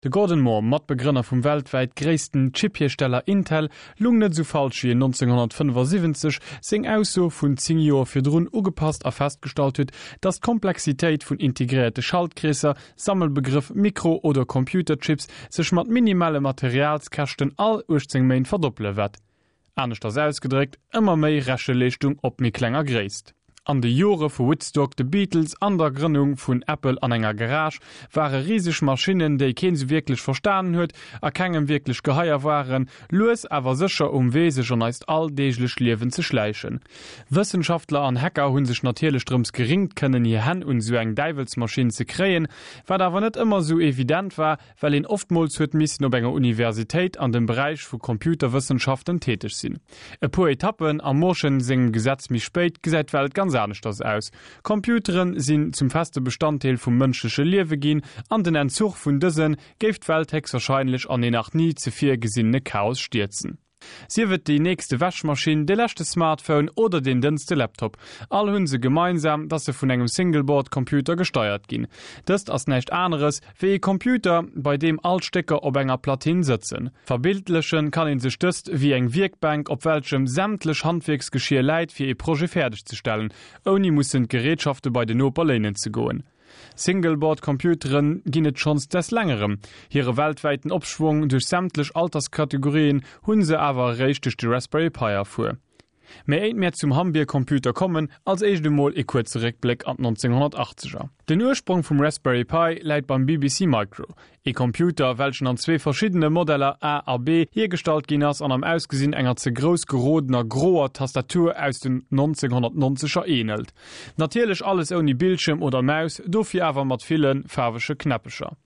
De Gordon Moore, Matbegrënner vum weltwäit gréissten Chip-Hiersteller Intel, lung net esou falsch wéi en 1975 seng Ausso vun 10 Joer virdrun ugepasst a festgestallt huet, datt d'Komplexitéit vun integréierte Schaltkreesser, Sammelbegrëff Mikro oder Computerchips, sech mat minimale Materialskäschten all 18 Méint verdoppele wäert. Aneschters ausgedréckt, ëmmer méi Recheleeschtung op méi klenger Gréisst. An de Jore vu Woodstock, de Beatles an der Grënnung vun Apple an enger Garage ware riseg Maschinnen, déi keen sou wierklech verstanen huet a kengem wierklech geheier waren, lues awer sécher um Wee sech an eist alldeeglecht Liewen ze schläichen. Wëssenschaftler an Hacker hu sech natierlech drëms geringt kënnen hir Hänn un sou eng Däiwelsmaschinn ze kréien, wat awer net ëmmer sou evident war, well een oftmools huet missen op enger Universitéit an dem Beräich vu Computerwëssenschaften täteg sinn. E puer Etappen am Mooreschen sengem Gesetz méi spéit gesäit d'Welt ganz aneschters aus. Computeren sinn zum feste Bestanddeel vum mënschleche Liewe ginn an den Entzuch vun dëse géif d'Welt héchstwahrscheinlech an een nach ni zevir gesinnene Chaos stierzen. Sief et déi nächste Wäschmaschinn, de leschte Smartphone oder deen dënnste Laptop, all hunn se gemeinsam, dass se vun engem Single-Board-Computer gesteiert ginn. Dëst ass näischt aneres wéi e Computer, bei deem all d'Stécker op enger Platinn sëtzen. Verbildlechen kann een sech dëst wéi eng Wierkbänk, op welchem sämtlech Handwierksgeschier läit fir ee Projet fäerdeg ze stellen, ouni mussen d'Gerätschafte bei den Noper léinen ze goen. Single-Board-Computeren ginn et schonns des längerem. Hire weltwäiten Opschwong duerch sämtlech Alterskategorien hunn se awer eréischt duerch de Raspberry Pi erfuer. Mee éit mär zum Hambier-Computer kommen, als éischt emol ee kuerze Réckbléck an d'Nonzénghonnertachzeger. Den Ursprong vum Raspberry Pi läit beim BBC Micro, Ee Computer, welchen an zwee verschiddene Modeller, A a B, hiergestallt ginn ass an am Ausgesinn enger ze grouss gerodener groer Tastatur aus den 1990er ähnelt. Natierlech alles ouni Bildschirm oder Maus, dofir awer mat ville faarwege Knäppecher.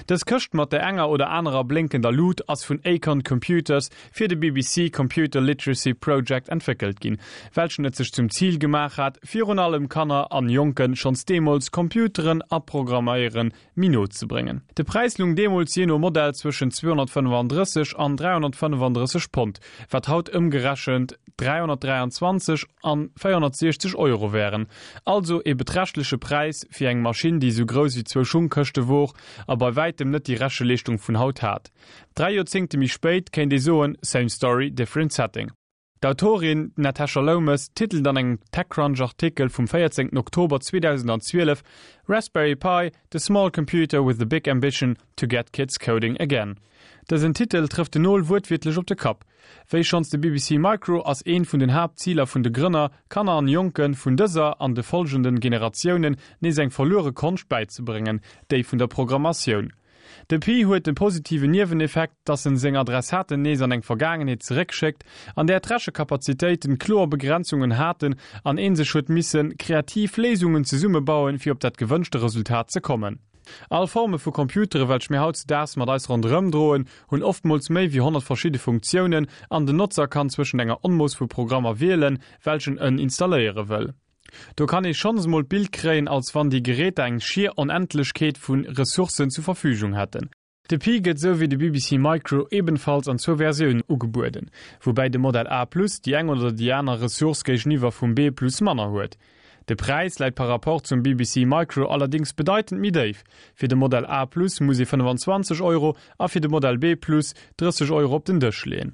Dës Këscht mat der enger oder anerer blénkender Lut ass vun Acorn Computers fir de BBC Computer Literacy Project entwéckelt ginn, welchen et sech zum Zil gemaach hat, virun allem Kanner an Jonken schonns deemools Computeren a Programméieren méi no ze bréngen. De Präis lung deemools jee no Modell zwëschen 235 an 335 Pond, wat haut ëmgerechent 323 an 460 Euro wären. Also ee beträchtleche Präis fir eng Maschinn, déi esou grouss wéi zwou Schungkëschte wor a bei wäitem net déi Recheleeschtung vun haut hat. Dräi Joerzéngte méi spéit kéint ee soen, same story, different setting. D'Autorin Natasha Lomas titelt an engem TechCrunch-Artikel vum 14 Oktober 2012 Raspberry Pi, The small computer with the big ambition to get kids coding again. Dësen Titel trëfft den Nol wuertwiertlech op de Kapp. Wéi schonns de BBC Micro ass eent vun den Haaptziler vun de Grënner, Kanner an Jonke vun dëser an de folgenden Generatiounen nees eng verluere Konscht bäizebréngen, déi vun der Programmatioun. De Pi huet de positiven Nieweneffekt, dass en seng Adressaten nees an eng Vergaangenheet zeréckschéckt, an där d'Rechekapazitéiten kloer Begrenzungen haten an een sech huet missen kreativ Léisungen zesummebauen, fir op dat gewënschte Resultat ze kommen. All Forme vu Computere welch mir hautzedaags mat eis ronderëm droen, hunn oftmools méi wéi 100 verschidde Funktiounen an den Notzer kann zwëschent enger Onmooss vu Programmer wielen, welchen en installéiere wëll. Do kann ee schonns mol d'Bild kréien, als wann déi Geräter eng schier Onendlechkeet vu Ressourcen zu Verfügung hätten. De Pi gëtt esou wéi de BBC Micro ebenfalls an zwou Versiounen ugebueden, woubäi de Modell A Plus déi eng oder déi aner Ressource géigeniwwer vum B Plus manner huet. De Präis läit par rapport zum BBC Micro allerdéngs bedeitend méi déif, fir de Modell A Plus muss ee 25 Euro a fir de Modell B Plus 30 Euro op den Dësch leeën.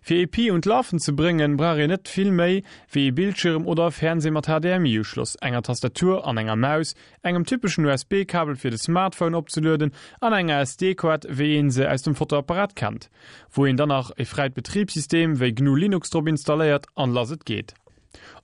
Fir ee Pi un d'Lafen ze bréngen, brauch een net vill méi wéi ee Bildschirm oder e Fernseh mat HDMI-Uschloss, enger Tastatur an enger Maus, engem typeschen USB-Kabel fir de Smartphone opzelueden an enger SD-Koart wéi een se aus dem Fotoapparat kennt, wou een dann nach e fräit Betribssystem wéi GNU Linux drop installéiert an lass et geet.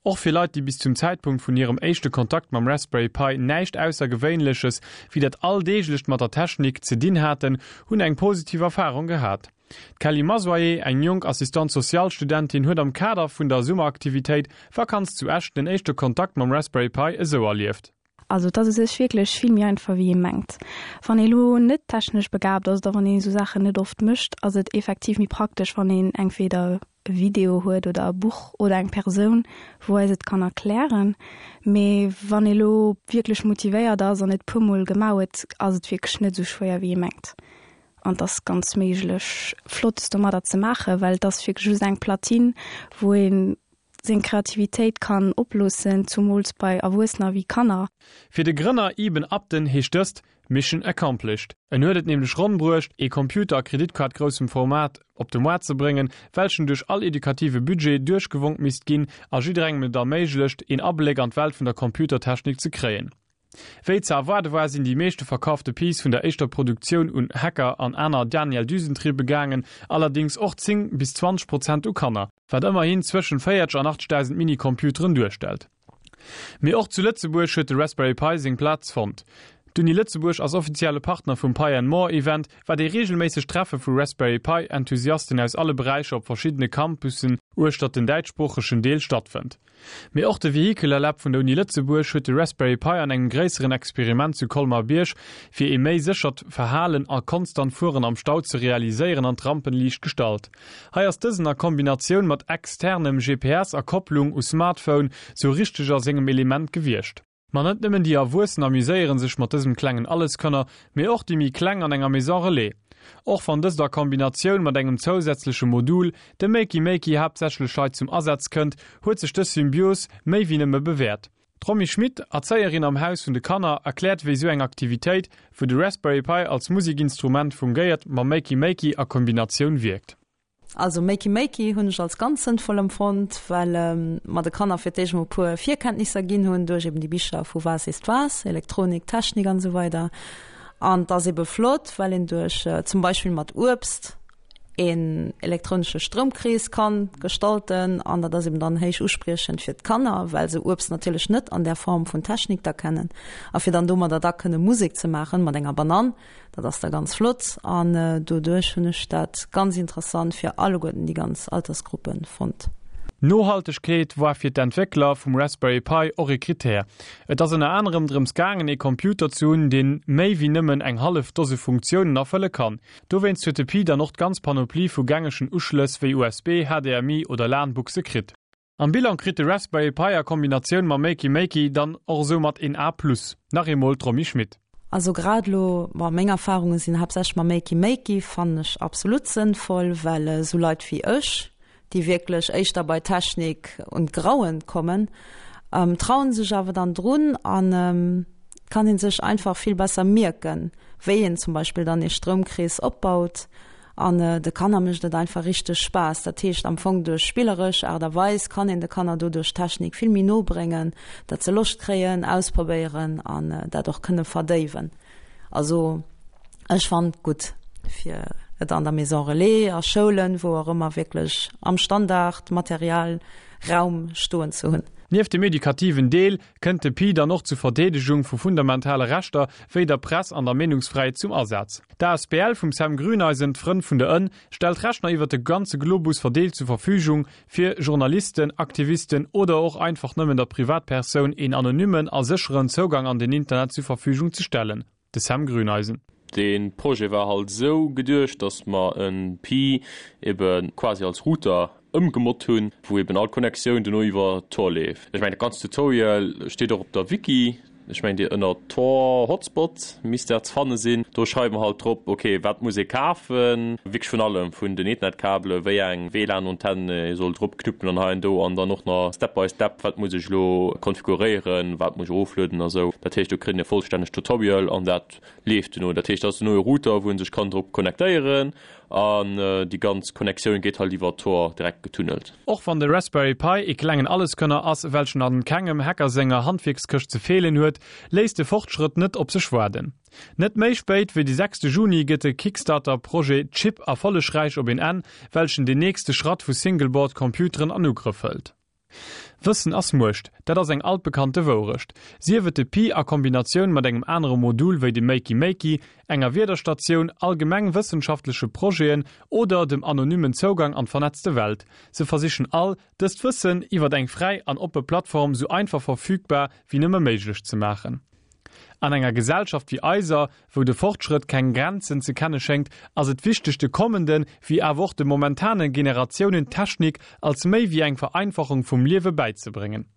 Och fir Leit, déi bis zum Zäitpunkt vun hirem éischte Kontakt mam Raspberry Pi näischt Aussergewéinleches wéi dat Alldeeglecht mat der Technik ze dinn haten, hunn eng positiv Erfarung gehat. D'Kelly Masoyer, eng jonk Assistante sociale Studentin, huet am Kader vun der Summeraktivitéit Vakanz zu Esch den éischte Kontakt mam Raspberry Pi esou erlieft. Also et ass u sech wierklech vill méi einfach wéi ee mengt. Wann ee lo net technesch begaabt ass oder wann een esou Saachen net oft mécht, ass et effektiv méi praktesch wann een entweder e Video huet oder e Buch oder eng Persoun wou eis et kann erklären. Mee wann ee lo wierklech motivéiert ass an et puer mol gemaach huet, ass et wierklech net esou schwéier wéi ee mengt. An et ass ganz méiglech Flottes domadder ze maachen, well et ass wierklech just eng Platine, wou ee seng Kreativitéit kann oploossen, zumools bei Erwuessener wéi Kanner. Fir de Grënner Eben Upton heescht dëst, Mission accomplished. En huet et nämlech ronn bruecht, ee Computer a Kreditkaart groussem Format op de Moart ze bréngen, welchen duerch all edukative Budget duerchgewonk misst ginn a jidderengem et erméiglecht, een Abléck an d'Welt vun der Computertechnik ze kréien. Wéi ze erwaarde war, sinn déi meeschte verkaafte Piece vun der éischter Produktioun un Hacker an aner Daniel Düsentriebe gaangen, allerdéngs och 10 bis 20 Prozent u Kanner, wat ëmmerhin zwëschen 40 an 80.000 Minicomputeren duerstellt. Mee och zu Lëtzebuerg huet de Raspberry Pi seng Plaz fonnt. D'Uni Lëtzebuerg ass offizielle Partner vum Pi and More Event, wat ee reegelméissegt Treffe vu Raspberry Pi Enthusiasten aus alle Beräicher op verschiddene Campussen uechtert den däitschsproochegen Deel stattfënnt. Mee och de Vehicular Lab vun der Uni Lëtzebuerg huet de Raspberry Pi an engem gréisseren Experiment zu Colmar-Bierg fir ee méi séchert Verhalen a konstant Fueren am Stau ze realiséieren an d'Rampenliicht gestallt. Hei ass dësen a Kombinatioun mat externem GPS a Kopplung u Smartphone sou richteg a sengem Element gewiescht. Ma net nëmmen déi Erwuessen amuséieren sech mat dësem klengen Alleskönner, mee och déi méi kleng an enger Maison Relais. Och wann dëst a Kombinatioun mat engem zousätzleche Modul, dem Makey Makey, haaptsächlech hei zum Asaz kënnt, huet sech dës Symbios méi wéi nëmme bewäert. D'Romy Schmit, Erzéierin am Haus vun de Kanner, erkläert wéi sou eng Aktivitéit, wou de Raspberry Pi als Musikinstrument fungéiert, mam Makey Makey a Kombinatioun wierkt. Also Makey Makey hunn ech als ganz sënnvoll empfonnt, well mer de Kanner fir d'éischt emol e puer Virkenntnisser ginn hunn duerch eben déi Bicher vu Was ist was, Elektronik, Technik an esou weider. An et ass ebe flott, well een duerch zum Beispill mat Uebst een elektronesche Stroumkrees kann gestalten an dat ass eben dann héich uspriechend fir d'Kanner, well se Uebst natierlech net an där Form vun Technik da kennen. A fir dann domadder da kënne Musek ze maachen mat enger Banann, Dat ass da ganz flott an doduerch hunn ech dat ganz interessant fir alleguerten déi ganz Altersgruppen fonnt. Nohaltegkeet war fir d'Entwéckler vum Raspberry Pi och ee Krittär. Et ass ënner anerem drëms gaangen ee Computer ze hunn, deen méi wéi nëmmen eng hallef Dose Funktiounen erfëlle kann. Dowéinst huet de Pi dann och d'ganz Panoplie vu gängegen Uschlëss wéi USB, HDMI oder LAN-Buchse kritt. Am Bilan kritt de Raspberry Pi a Kombinatioun mam Makey Makey dann och esoumat een A plus. Nach eemol d'Romy Schmit. Also grad elo, bon meng Erfahrungen sinn haaptsächlech mam Makey Makey, fannen ech absolut sënnvoll, well esou Leit wéi ech, déi wierklech éischter bei Technik un d'Grauen kommen, trauen sech awer dann drun an kann een sech einfach vill besser mierken, wéi een zum Beispill dann ee Stroumkrees opbaut. An de Kanner mécht et einfach richteg Spaass. Dat heescht am Fong duerch spilleresch Aart a Weis kann een de Kanner doduerch d'Technik vill méi no bréngen, dat se Loscht kréien, ausprobéieren an dat och kënne verdéiwen. Also ech fannen et gutt fir et an der Maison Relais, a Schoulen, wou och ëmmer wierklech am Standard Material Raum stoen ze hunn. Nieft dem edukativen Deel kënnt de Pi dann och zur Verdeedegung vu fundamentale Rechter wéi der Press an der Meenungsfräiheet zum Asaz. D'ASBL vum Sam Grüneisen, d'Frënn vun der Ënn, stellt Rechner iwwer de ganze Globus verdeelt zur Verfügung, fir Journalisten, Aktivisten oder och einfach nëmmen der Privatpersoun een anonymmen a sécheren Zougang an den Internet zur Verfügung ze stellen. De Sam Grüneisen. De Projet war halt esou geduecht, dass mer e Pi ebe quasi als Router ëmgemod hunn, wou eben all Connectioun dono iwwer Tor leeft. Ech mengen dat ganzt Tutorial steet och op der Wiki, ech mengen déi ënner Tor Hotspot misst dat ze fanne sinn. Do schreiwe mer halt drop, ok wat muss ee kafen, wierklech vun allem, vun den Ethernetkabele, wéi eng WLAN-Antennen ee soll drop knuppen an hei an do an dann och nach Step by Step, wat muss ech elo konfiguréieren, wat muss ech eroflueden a sou. Dat heescht do kritt een e vollstännegt Tutorial an dat leeft dono. Dat heescht dat ass dono e Router wou ee sech kann drop connectéieren An déi ganz Connectioun geet halt iwwer Tor direkt getunnelt. Och wann de Raspberry Pi ee klengen Alleskönner ass, welchen an kengem Hacker senger Handwierkskëscht ze feelen huet, léisst de Fortschrëtt net op sech waarden. Net méi spéit wéi de sechste Juni gëtt de Kickstarter Projet Chip erfollegräich op een Enn, welchen den nächste Schratt vu Single-Board Computeren an Ugrëff hëlt. Wëssen ass Muecht, dat ass eng altbekannte Wourecht. Sief et de Pi a Kombinatioun mat engem anere Modul wéi dem Makey Makey, enger Wiederstatioun, allgemeng wëssenschaftleche Projeten oder dem anonymmen Zougang an d'vernetzte Welt, se versichen all, dëst Wëssen iwwert eng fräi an oppe Plattform sou einfach verfügbar wéi nëmme méiglech ze maachen. An enger Gesellschaft wéi eiser, wou de Fortschrëtt keng Grenzen ze kenne schéngt, ass et wichteg de kommenden, wéi awer och de momentane Generatiounen d'Technik als méi wéi eng Vereinfachung vum Liewe bäizebréngen.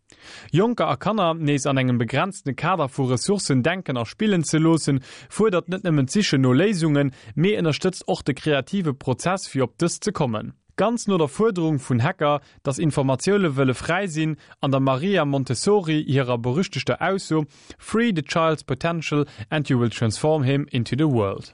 Jonker a Kanner nees an engem begrenzte Kader vu Ressourcen denken a spillen ze loossen, fuerdert net nëmmen d'Sichen no Léisungen, mee ënnerstëtzt och de kreative Prozess fir op dës ze kommen. Ganz no der Fuerderung vun Hacker, dass Informatioune wëlle fräi sinn, an der Maria Montessori hirer berüchtegter Ausso, Free the child's potential and you will transform him into the world.